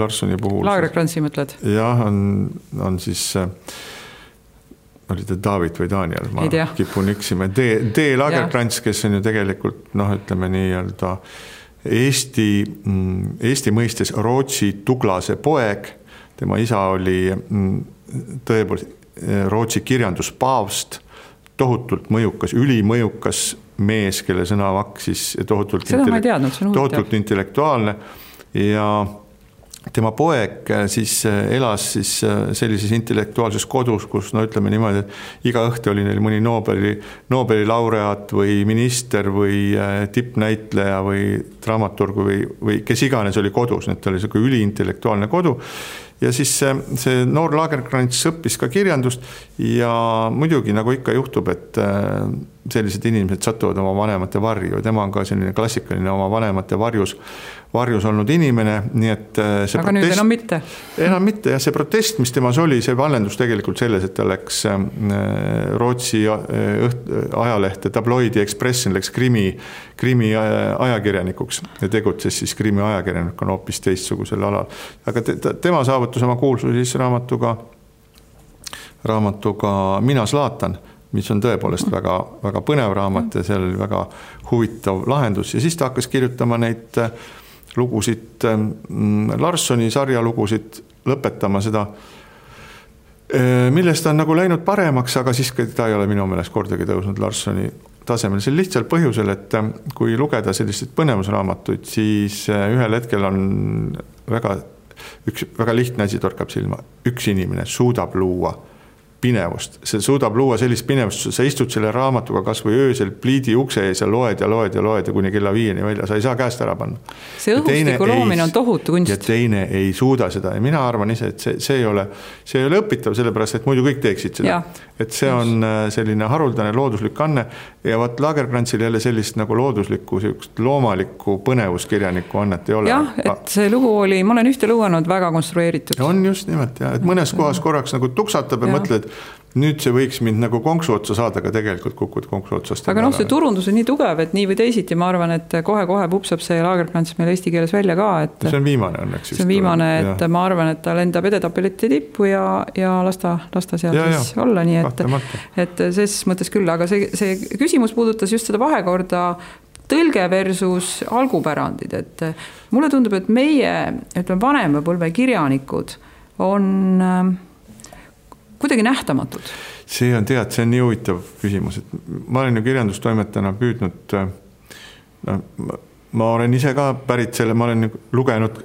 Larssoni puhul... Lagerkrantsi mõtled? Jah, on siis... oli ta David või Daniel, ma kipun üksima. D. Lagerkrants, kes on ju tegelikult, ütleme nii-öelda Eesti mõistes Rootsi Tuglase poeg. Tema isa oli tõepoolest Rootsi kirjanduspaavst, tohutult mõjukas, ülimõjukas mees, kelle sõnavakk siis tohutult intellektuaalne ja tema poeg siis elas siis sellises intellektuaalses kodus, kus ütleme niimoodi, et iga õhtu oli neil mõni Nobeli laureaat või minister või tippnäitleja või dramaturg või kes iganes oli kodus, need oli selline üliintellektuaalne kodu. Ja siis see noor Lagerkrants õppis ka kirjandust ja muidugi nagu ikka juhtub, et sellised inimesed satuvad oma vanemate varju. Tema on ka selline klassikaline oma vanemate varjus olnud inimene, nii et see aga nüüd enam mitte. Enam mitte ja see protest, mis temas oli, see vallendus tegelikult selles, et ta läks Rootsi ajalehte Tabloidi Expressin, läks krimi ajakirjanikuks ja tegutses siis krimi ajakirjanikuna hoopis teistsugusel alal. Aga tema saavutus oma kuulsus siis raamatuga Mina Zlatan, mis on tõepoolest väga, väga põnev raamat ja seal oli väga huvitav lahendus. Ja siis ta hakkas kirjutama neid lugusid, Larssoni sarjalugusid, lõpetama seda, millest on nagu läinud paremaks, aga siis ta ei ole minu meelest kordagi tõusnud Larssoni tasemel. See lihtsal põhjusel, et kui lugeda selliseid põnevusraamatuid, siis ühel hetkel on väga lihtne asi torkab silma. Üks inimene suudab luua pinevust. See suudab luua sellist pinevust, sa istud selle raamatuga kas või öösel pliidi ukse ees ja loed ja kuni kella 5 välja, sa ei saa käest ära panna. See õhustiku loomine on tohutu kunst. Ja teine ei suuda seda ja mina arvan ise, et see ei ole õpitav, sellepärast, et muidu kõik teeksid seda. Et see on selline haruldane looduslik anne ja vaat Lagerkrantsil jälle sellist nagu looduslikku, loomalikku põnevuskirjaniku annet ei ole. Jah, et see lugu oli, ma olen ühte lugenud väga konstrueeritud. On just nimelt, et mõnes kohas korraks nagu tuksatab ja mõtled, nüüd see võiks mind nagu konksu otsa saada, aga tegelikult kukud konksu otsast. Aga see turundus on nii tugev, et nii või teisiti, ma arvan, et kohe pupsab see Lagerkrants meil eesti keeles välja ka. Et see on viimane õnneks. See on viimane, et ma arvan, et ta lendab edetapeleti tippu ja lasta seal siis olla, nii et ses mõttes küll, aga see küsimus puudutas just seda vahekorda tõlge versus algupärandid, et mulle tundub, et meie vanema põlve kirjanikud on kuidagi nähtamatud. See on nii huvitav küsimus, et ma olen ju kirjandustoimetajana püüdnud, ma olen ise ka pärit selle, ma olen lugenud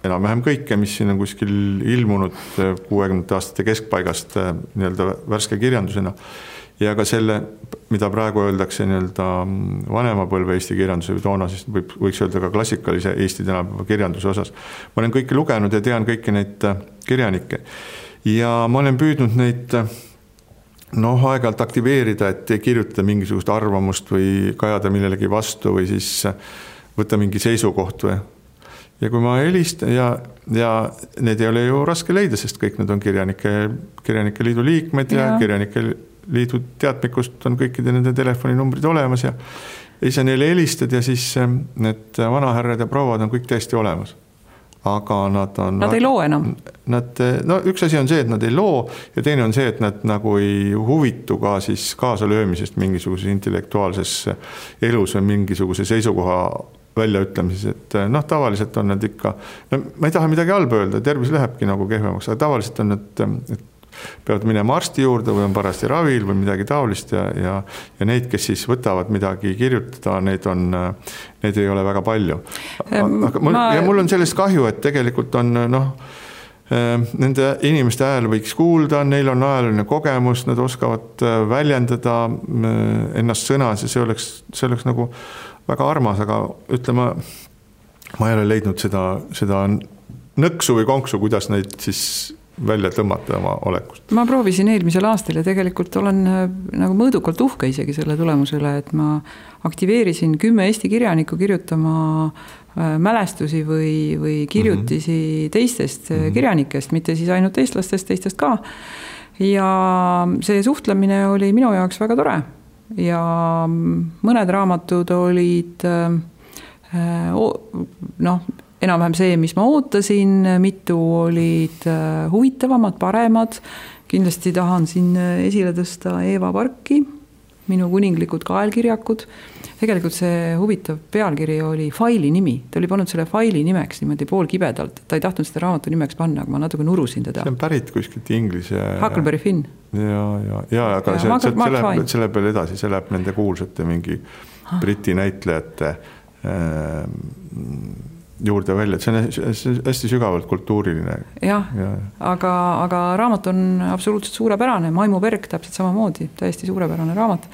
enam-vähem kõike, mis siin on kuskil ilmunud 60 aastate keskpaigast nii-öelda värske kirjandusena ja ka selle, mida praegu öeldakse nii-öelda vanema põlve Eesti kirjanduse või toona, siis võiks öelda ka klassikalise Eesti tänapäeva kirjanduse osas. Ma olen kõike lugenud ja tean kõiki neid kirjanikke. Ja ma olen püüdnud neid noh, aeg-ajalt aktiveerida, et kirjutada mingisugust arvamust või kajada millelegi vastu või siis võtta mingi seisukoht või. Ja kui ma helistan ja need ei ole ju raske leida, sest kõik need on kirjanike liidu liikmed ja kirjanike liidu teadmikust on kõikide nende telefoninumbrid olemas ja siis neile helistad ja siis need vanahärrad ja prouad on kõik täiesti olemas. Aga nad ei loo enam. Üks asi on see, et nad ei loo ja teine on see, et nad nagu ei huvitu ka siis kaasalöömisest mingisuguses intellektuaalses elus või mingisuguse seisukoha väljaütlemises, et tavaliselt on nad ikka, ma ei taha midagi halba öelda, tervis lähebki nagu kehvemaks, aga tavaliselt on nad peavad minema arsti juurde või on parasti ravil või midagi taolist ja neid, kes siis võtavad midagi kirjutada, neid ei ole väga palju. Ja mul on sellest kahju, et tegelikult on nende inimeste hääl võiks kuulda, neil on ajaline kogemus, nad oskavad väljendada ennast sõnas ja see oleks nagu väga armas, aga ütleme, ma ei ole leidnud seda nõksu või konksu, kuidas neid siis välja tõmmata oma olekust. Ma proovisin eelmisel aastal ja tegelikult olen nagu mõõdukalt uhke isegi selle tulemusele, et ma aktiveerisin 10 Eesti kirjanikku kirjutama mälestusi või kirjutisi teistest kirjanikest, mitte siis ainult eestlastest, teistest ka. Ja see suhtlemine oli minu jaoks väga tore ja mõned raamatud olid enam-vähem see, mis ma ootasin, mitu olid huvitavamad, paremad. Kindlasti tahan siin esile tõsta Eeva Parki, minu kuninglikud kaelkirjakud. Tegelikult see huvitav pealkiri oli faili nimi. Ta oli pannud selle faili nimeks niimoodi poolkibedalt. Ta ei tahtnud seda raamatu nimeks panna, aga ma natuke nurusin teda. See on pärit kuskilt inglise. Huckleberry Finn. Ja aga see läheb veel edasi, see läheb nende kuulsate mingi briti näitlejate juurde välja, et see on hästi sügavalt kultuuriline. Jah. Aga raamat on absoluutselt suurepärane, Maimu Berg täpselt samamoodi, täiesti suurepärane raamat.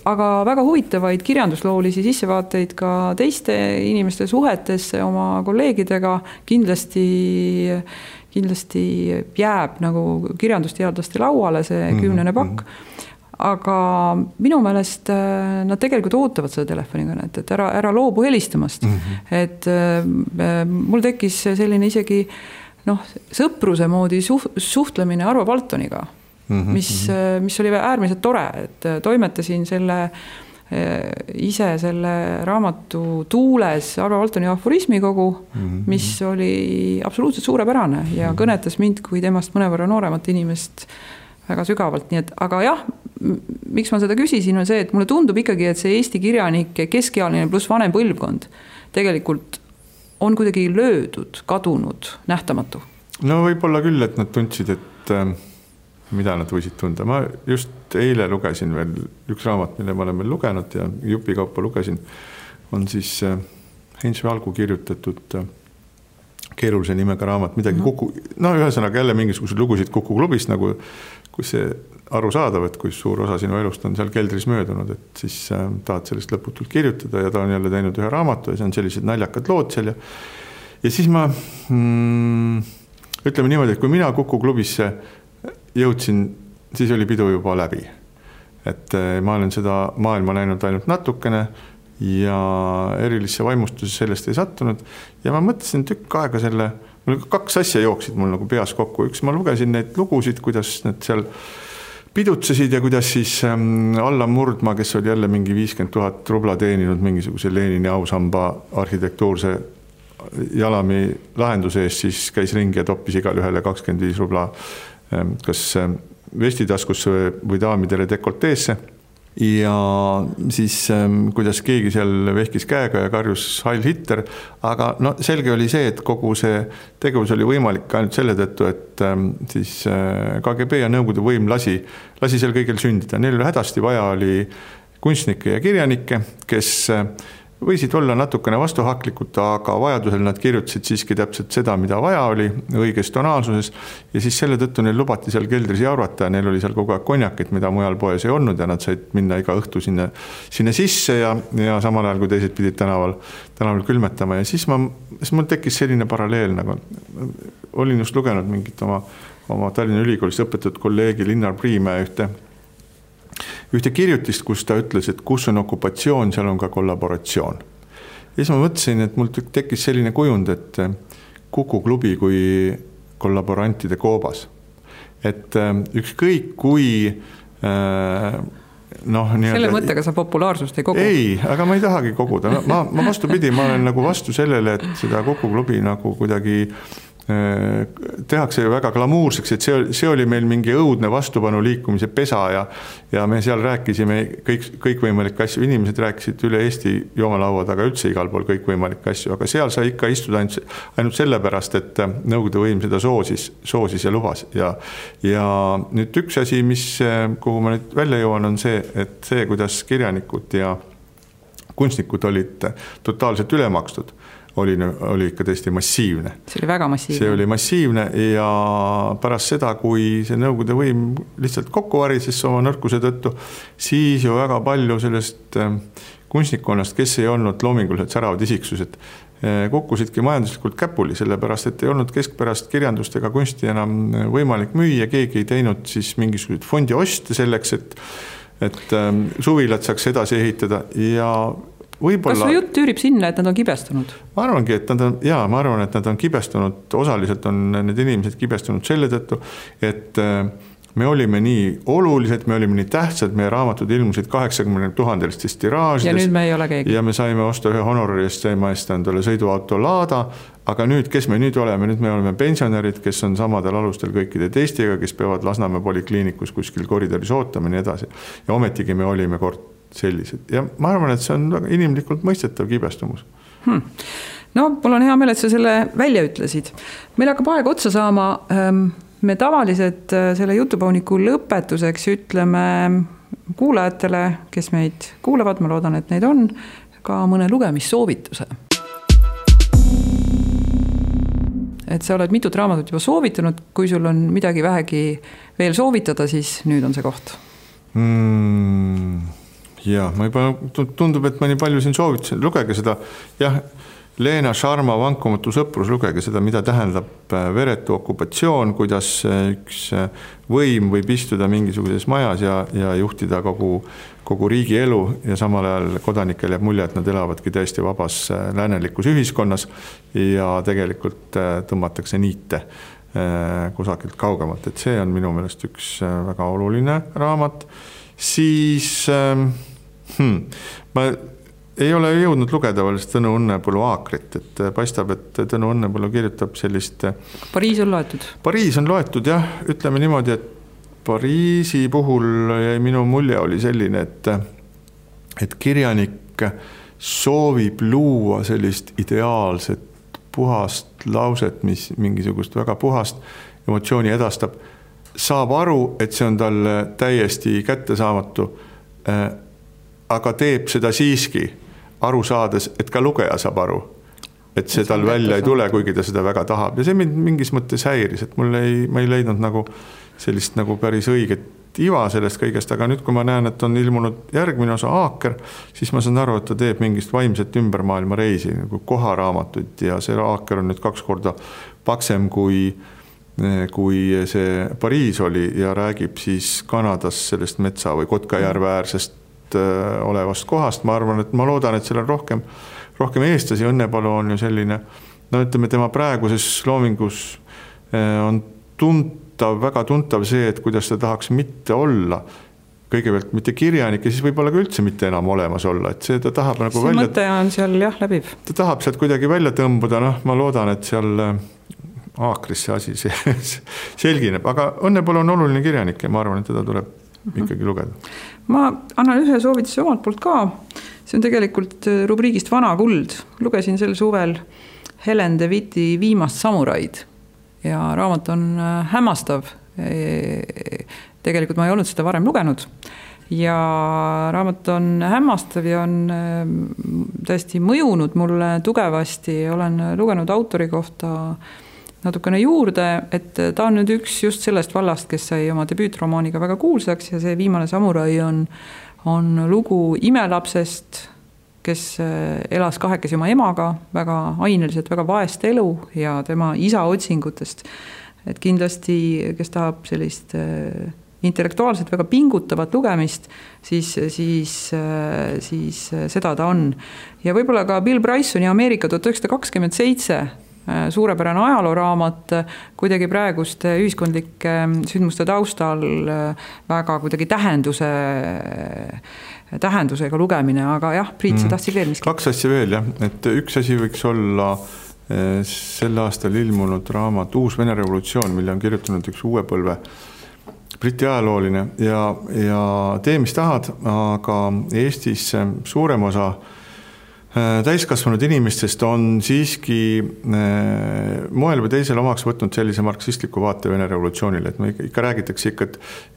Aga väga huvitavaid kirjandusloolisi sissevaateid ka teiste inimeste suhetesse oma kolleegidega kindlasti jääb nagu kirjandusteadlaste lauale see 10. pakk. Aga minu meelest nad tegelikult ootavad seda telefonikõnet, et ära loobu helistamast. Et mul tekkis selline isegi sõpruse moodi suhtlemine Arvo Paltoniga, mis oli äärmiselt tore, et toimetasin ise selle raamatu tuules Arvo Paltoni aforismikogu, mis oli absoluutselt suurepärane ja kõnetas mind kui temast mõnevõrra nooremat inimest väga sügavalt, nii et, aga jah, miks ma seda küsisin, on see, et mulle tundub ikkagi, et see Eesti kirjanike keskealine pluss vanem põlvkond tegelikult on kuidagi löödud, kadunud, nähtamatu. No võib-olla küll, et nad tundsid, et mida nad võisid tunda. Ma just eile lugesin veel üks raamat, mille ma olen veel lugenud ja jupikaupa lugesin, on siis Heinz Valgu kirjutatud keerulise nimega raamat, midagi ühesõnaga jälle mingisugused lugusid Kuku klubist, nagu kui see aru saadav, et kui suur osa sinu elust on seal keldris möödunud, et siis tahad sellest lõputult kirjutada ja ta on jälle teinud ühe raamatu ja see on sellised naljakad lood seal ja siis ma ütleme niimoodi, et kui mina Kuku klubisse jõudsin, siis oli pidu juba läbi. Et ma olen seda maailma näinud ainult natukene ja erilisse vaimustuses sellest ei sattunud ja ma mõtlesin tükk aega mul 2 asja jooksid mul nagu peas kokku. Üks, ma lugesin neid lugusid, kuidas need seal pidutsesid ja kuidas siis Allan Murdma, kes oli jälle mingi 50 000 rubla teeninud mingisuguse Lenini ausamba arhitektuurse jalami lahenduse eest, siis käis ringi ja toppis igal ühele 25 rubla kas vestitaskusse või daamidele dekolteesse. Ja siis kuidas keegi seal vehkis käega ja karjus Heil Hitler, aga selge oli see, et kogu see tegevus oli võimalik ainult selle tõttu, et siis KGB ja Nõukogude võim lasi seal kõigil sündida. Neil hädasti vaja oli kunstnikke ja kirjanikke, kes võisid olla natukene vastuhaklikud, aga vajadusel nad kirjutasid siiski täpselt seda, mida vaja oli õiges tonaalsuses ja siis selle tõttu neil lubati seal keldris jaurata ja neil oli seal kogu aeg konjakit, mida mujal poes ei olnud ja nad said minna iga õhtu sinna sisse ja samal ajal, kui teised pidid tänaval külmetama ja siis mul tekkis selline paralleel, nagu olin just lugenud mingit oma Tallinna Ülikoolis õpetatud kolleegi Linnar Priimäe ühte ühte kirjutist, kus ta ütles, et kus on okupatsioon, seal on ka kollaboratsioon. Ja siis ma mõtlesin, et mul tekkis selline kujund, et Kuku klubi kui kollaborantide koobas. Et ükskõik kui selle mõttega sa populaarsust ei kogu? Ei, aga ma ei tahagi koguda. Ma vastupidi, ma olen nagu vastu sellele, et seda Kuku klubi nagu kuidagi tehakse ju väga glamuurseks, et see oli meil mingi õudne vastupanu liikumise pesa ja me seal rääkisime kõikvõimalikke asju, inimesed rääkisid üle Eesti joomalaua taga üldse igal pool kõikvõimalikke asju, aga seal sai ikka istuda ainult sellepärast, et Nõukogude võim seda soosis ja lubas ja nüüd üks asi, kuhu ma nüüd välja jõuan, on see, et see, kuidas kirjanikud ja kunstnikud olid totaalselt ülemakstud, oli ikka tõesti massiivne. See oli väga massiivne. See oli massiivne ja pärast seda, kui see Nõukogude võim lihtsalt kokku varises oma nõrkuse tõttu, siis ju väga palju sellest kunstnikkonnast, kes ei olnud loominguliselt säravad isiksused, kukkusidki majanduslikult käpuli, sellepärast, et ei olnud keskpärast kirjandust ega kunsti enam võimalik müüa, keegi ei teinud siis mingisugused fondi oste selleks, et suvilad saaks edasi ehitada ja kas su jutt üürib sinna, et nad on kibestunud? Ma arvan, et nad on kibestunud, osaliselt on need inimesed kibestunud selle tõttu, et me olime nii olulised, me olime nii tähtsad, meie raamatud ilmusid 80 000 tiraažides. Ja nüüd me ei ole keegi. Ja me saime osta ühe honorari eest endale sõiduauto Lada, aga nüüd, kes me nüüd oleme? Nüüd me oleme pensionärid, kes on samadel alustel kõikide teistega, kes peavad Lasnamäe polikliinikus kuskil koridoris ootama ja nii edasi. Ja ometigi me olime kord sellised. Ja ma arvan, et see on väga inimlikult mõistetav kibestumus. No, mul on hea meel, et sa selle välja ütlesid. Meil hakkab aeg otsa saama. Me tavaliselt selle jutupauniku lõpetuseks ütleme kuulajatele, kes meid kuulavad, ma loodan, et neid on, ka mõne lugemissoovituse. Et sa oled mitut raamatut juba soovitanud, kui sul on midagi vähegi veel soovitada, siis nüüd on see koht. Ja, ma juba tundub, et ma nii palju siin soovitasin. Lugege seda, Leena Sharma Vankumatu sõprus, lugege seda, mida tähendab veretu okupatsioon, kuidas üks võim võib istuda mingisuguses majas ja juhtida kogu riigi elu ja samal ajal kodanikel jääb mulje, et nad elavadki täiesti vabas läänelikus ühiskonnas ja tegelikult tõmmatakse niite kusagilt kaugemalt. Et see on minu meelest üks väga oluline raamat. Siis ma ei ole jõudnud lugeda veel Tõnu Õnnepõllu Aakrit, et paistab, et Tõnu Õnnepõllu kirjutab sellist... Pariis on loetud? Pariis on loetud, jah. Ütleme niimoodi, et Pariisi puhul minu mulje oli selline, et kirjanik soovib luua sellist ideaalset puhast lauset, mis mingisugust väga puhast emotsiooni edastab, saab aru, et see on tal täiesti kättesaamatu, aga teeb seda siiski aru saades, et ka lugeja saab aru, et see tal välja ei tule, kuigi ta seda väga tahab. Ja see mind mingis mõttes häiris, et ma ei leidnud nagu sellist nagu päris õiget iva sellest kõigest, aga nüüd, kui ma näen, et on ilmunud järgmine osa Aaker, siis ma saan aru, et ta teeb mingist vaimset ümbermaailma reisi, nagu koharaamatut ja see Aaker on nüüd 2 korda paksem kui see Pariis oli ja räägib siis Kanadas sellest metsa või Kotkajärve äärsest olevast kohast. Ma arvan, et ma loodan, et seal on rohkem eestlasi. Õnnepõllu on ju selline, ütleme, tema praeguses loomingus on väga tuntav see, et kuidas ta tahaks mitte olla kõigepealt mitte kirjanik ja siis võib-olla ka üldse mitte enam olemas olla, et see ta tahab nagu see mõte on seal läbiv. Ta tahab sealt kuidagi välja tõmbuda, ma loodan, et seal Aakris see asi selgineb, aga Õnnepõllu on oluline kirjanik ja ma arvan, et teda tuleb ikkagi lugeda. Ma annan ühe soovituse omalt poolt ka. See on tegelikult rubriigist Vana kuld. Lugesin sel suvel Helen de Witti Viimast samuraid ja raamat on hämmastav. Tegelikult ma ei olnud seda varem lugenud ja raamat on hämmastav ja on tõesti mõjunud mulle tugevasti. Olen lugenud autori kohta natukene juurde, et ta on nüüd üks just sellest vallast, kes sai oma debüütromaaniga väga kuulsaks ja see Viimane samurai on lugu imelapsest, kes elas kahekesi oma emaga väga aineliselt, väga vaest elu ja tema isa otsingutest. Et kindlasti, kes tahab sellist intellektuaalselt väga pingutavat lugemist, siis seda ta on. Ja võib-olla ka Bill Brysoni Ameerika 1927 suurepärane ajalooraamat, kuidagi praeguste ühiskondlike sündmuste taustal väga kuidagi tähendusega lugemine, aga jah, Priit, sa tahtsid veel miski? 2 asja veel, jah, et üks asi võiks olla sel aastal ilmunud raamat Uus Vene revolutsioon, mille on kirjutanud üks uue põlve Briti ajalooline ja tee, mis tahad, aga Eestis suurem osa täiskasvanud inimestest on siiski moel või teisel omaks võtnud sellise marksistliku vaate Vene revolutsioonile, et me ikka räägitakse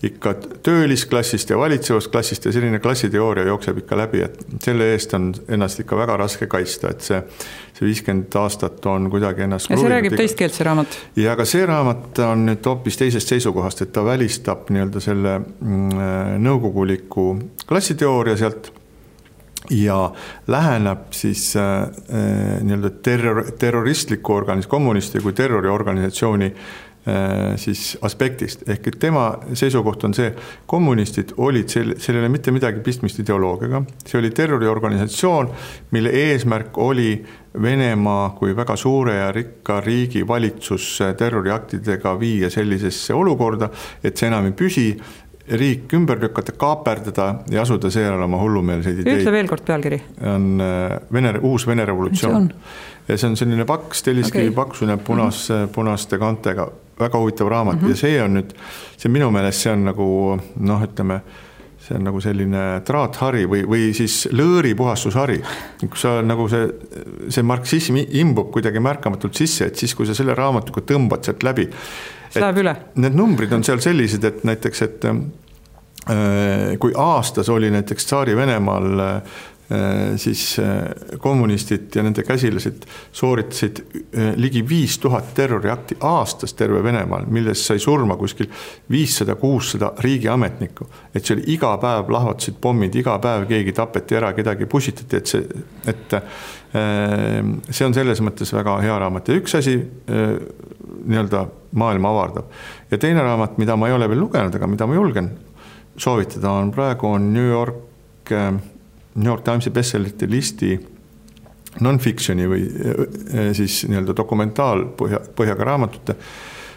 ikka töölisklassist ja valitsevast klassist ja selline klassiteooria jookseb ikka läbi, et selle eest on ennast ikka väga raske kaitsta, et see 50 aastat on kuidagi ennast... Ja see räägib teist keelt, see raamat? Ja aga see raamat on nüüd hoopis teisest seisukohast, et ta välistab nii-öelda selle nõukoguliku klassiteooria sealt ja läheneb siis nii-öelda terroristliku kommunisti kui terroriorganisatsiooni siis aspektist. Ehk et tema seisukoht on see, kommunistid olid sellele mitte midagi pistmist ideoloogiaga. See oli terroriorganisatsioon, mille eesmärk oli Venemaa kui väga suure ja rikka riigi valitsus terroriaktidega viia sellisesse olukorda, et see enam ei püsi, riik ümber lükata, kaaperdada ja asuda seejärel oma hullumeelseid ideid. Ütle veel kord pealkiri. On uus Vene revolutsioon. Ja see on selline paks, telliskivi paksune punaste kantega, väga huvitav raamat ja see on nüüd, see minu meelest see on nagu, ütleme, see on nagu selline traathari või siis lõõripuhastushari, kus sa nagu see marksism imbub kuidagi märkamatult sisse, et siis kui sa selle raamatuga tõmbad sealt läbi, need numbrid on seal sellised, et näiteks, et kui aastas oli näiteks Tsaari Venemaal siis kommunistid ja nende käsilased sooritasid ligi 5000 terroriakti aastas terve Venemaal, milles sai surma kuskil 500-600 riigiametnikku. Et see oli iga päev lahvatasid pommid, iga päev keegi tapeti ära, kedagi pusitati, et see on selles mõttes väga hea raamat. Ja üks asi nii-öelda maailma avardab. Ja teine raamat, mida ma ei ole veel lugenud, aga mida ma julgen soovitada, on praegu New York Timesi bestsellerite listi non-fictioni või siis nii-öelda dokumentaalpõhjaga raamatute.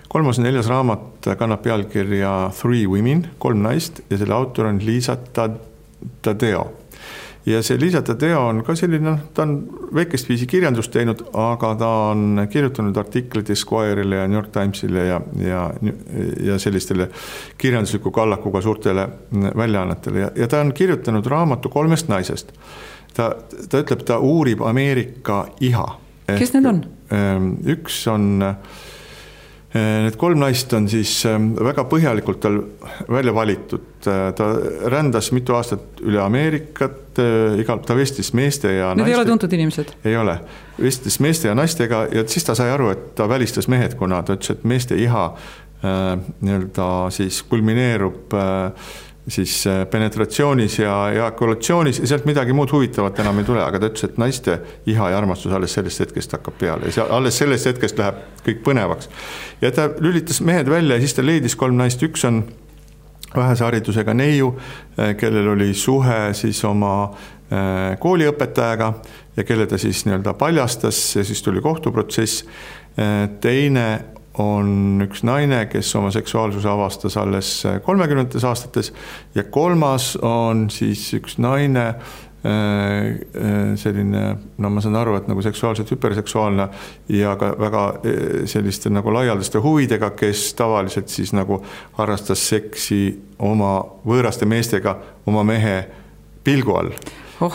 3. ja 4. raamat kannab pealkirja 3 Women, 3 naist ja selle autor on Liisa Tadeo. Ja see Liisa Tadeo on ka selline, ta on väikest viisi kirjandust teinud, aga ta on kirjutanud artikleid Esquire'ile ja New York Timesile ja sellistele kirjandusliku kallakuga suurtele väljaannetele. Ja ta on kirjutanud raamatu 3 naisest. Ta ütleb, ta uurib Ameerika iha. Kes need on? Üks on... Need 3 naist on siis väga põhjalikult tal välja valitud. Ta rändas mitu aastat üle Ameerikat, ta vestlis meeste ja naiste. Need ei ole tuntud inimesed? Ei ole. Vestlis meeste ja naistega ja siis ta sai aru, et ta välistas mehed, kuna ta ütles, et meeste iha nii-öelda siis kulmineerub siis penetratsioonis ja ejakulatsioonis ja sealt midagi muud huvitavat enam ei tule, aga ta ütles, et naiste iha ja armastus alles sellest hetkest hakkab peale ja alles sellest hetkest läheb kõik põnevaks. Ja ta lülitas mehed välja ja siis ta leidis 3 naist, üks on vähese haridusega neiu, kellel oli suhe siis oma kooliõpetajaga ja kelle ta siis nii-öelda paljastas ja siis tuli kohtuprotsess. Teine on üks naine, kes oma seksuaalsuse avastas alles 30. aastates ja 3. on siis üks naine, selline, ma saan aru, et nagu seksuaalselt hüperseksuaalne ja ka väga selliste nagu laialdaste huvidega, kes tavaliselt siis nagu harrastas seksi oma võõraste meestega oma mehe pilgu all.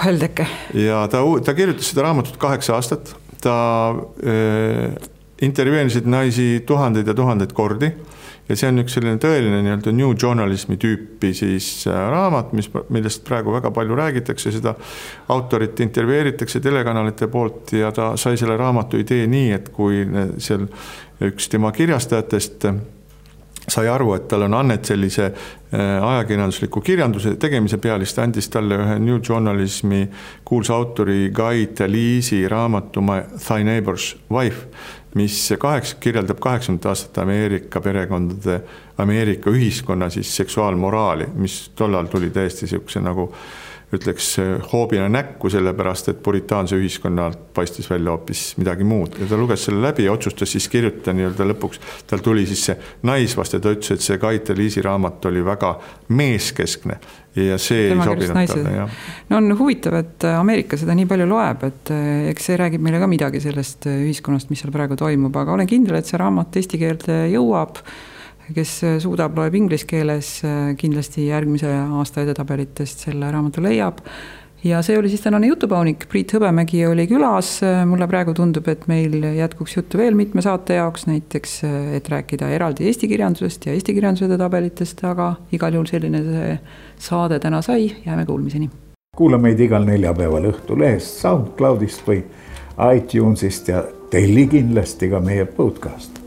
Heldeke. Ja ta kirjutas seda raamatut 8 aastat, ta intervjueerisid naisi tuhandeid ja tuhandeid kordi ja see on üks selline tõeline nii-öelda new journalismi tüüpi siis raamat, millest praegu väga palju räägitakse, seda autorit intervjueeritakse telekanalite poolt ja ta sai selle raamatu idee nii, et kui seal üks tema kirjastajatest sai aru, et tal on annet sellise ajakirjandusliku kirjanduse tegemise peale, siis ta andis talle ühe New Journalismi kuulsa autori Guy Talese raamatu My Thy Neighbor's Wife, mis kirjeldab 80 aastat Ameerika perekondade Ameerika ühiskonna siis seksuaalmoraali, mis tollal tuli täiesti siukse nagu ütleks hoobina näkku, sellepärast, et puritaanse ühiskonnalt paistis välja hoopis midagi muud. Ja ta luges selle läbi ja otsustas siis kirjutada nii-öelda lõpuks. Tal tuli siis see naisvaste, ta ütles, et see Kaite Liisi raamat oli väga meeskeskne ja see ei sobinud talle. Ja. No on huvitav, et Ameerika seda nii palju loeb, et eks see räägib meile ka midagi sellest ühiskonnast, mis seal praegu toimub, aga olen kindel, et see raamat eesti keelde jõuab. Kes suudab, loeb inglise keeles, kindlasti järgmise aasta edetabelitest selle raamatu leiab. Ja see oli siis tänane jutupaunik. Priit Hõbemägi oli külas. Mulle praegu tundub, et meil jätkuks juttu veel mitme saate jaoks, näiteks, et rääkida eraldi eesti kirjandusest ja eesti kirjanduse edetabelitest, aga igal juhul selline see saade täna sai. Jääme kuulmiseni. Kuula meid igal neljapäeval Õhtulehest, SoundCloudist või iTunesist ja telli kindlasti ka meie podcast.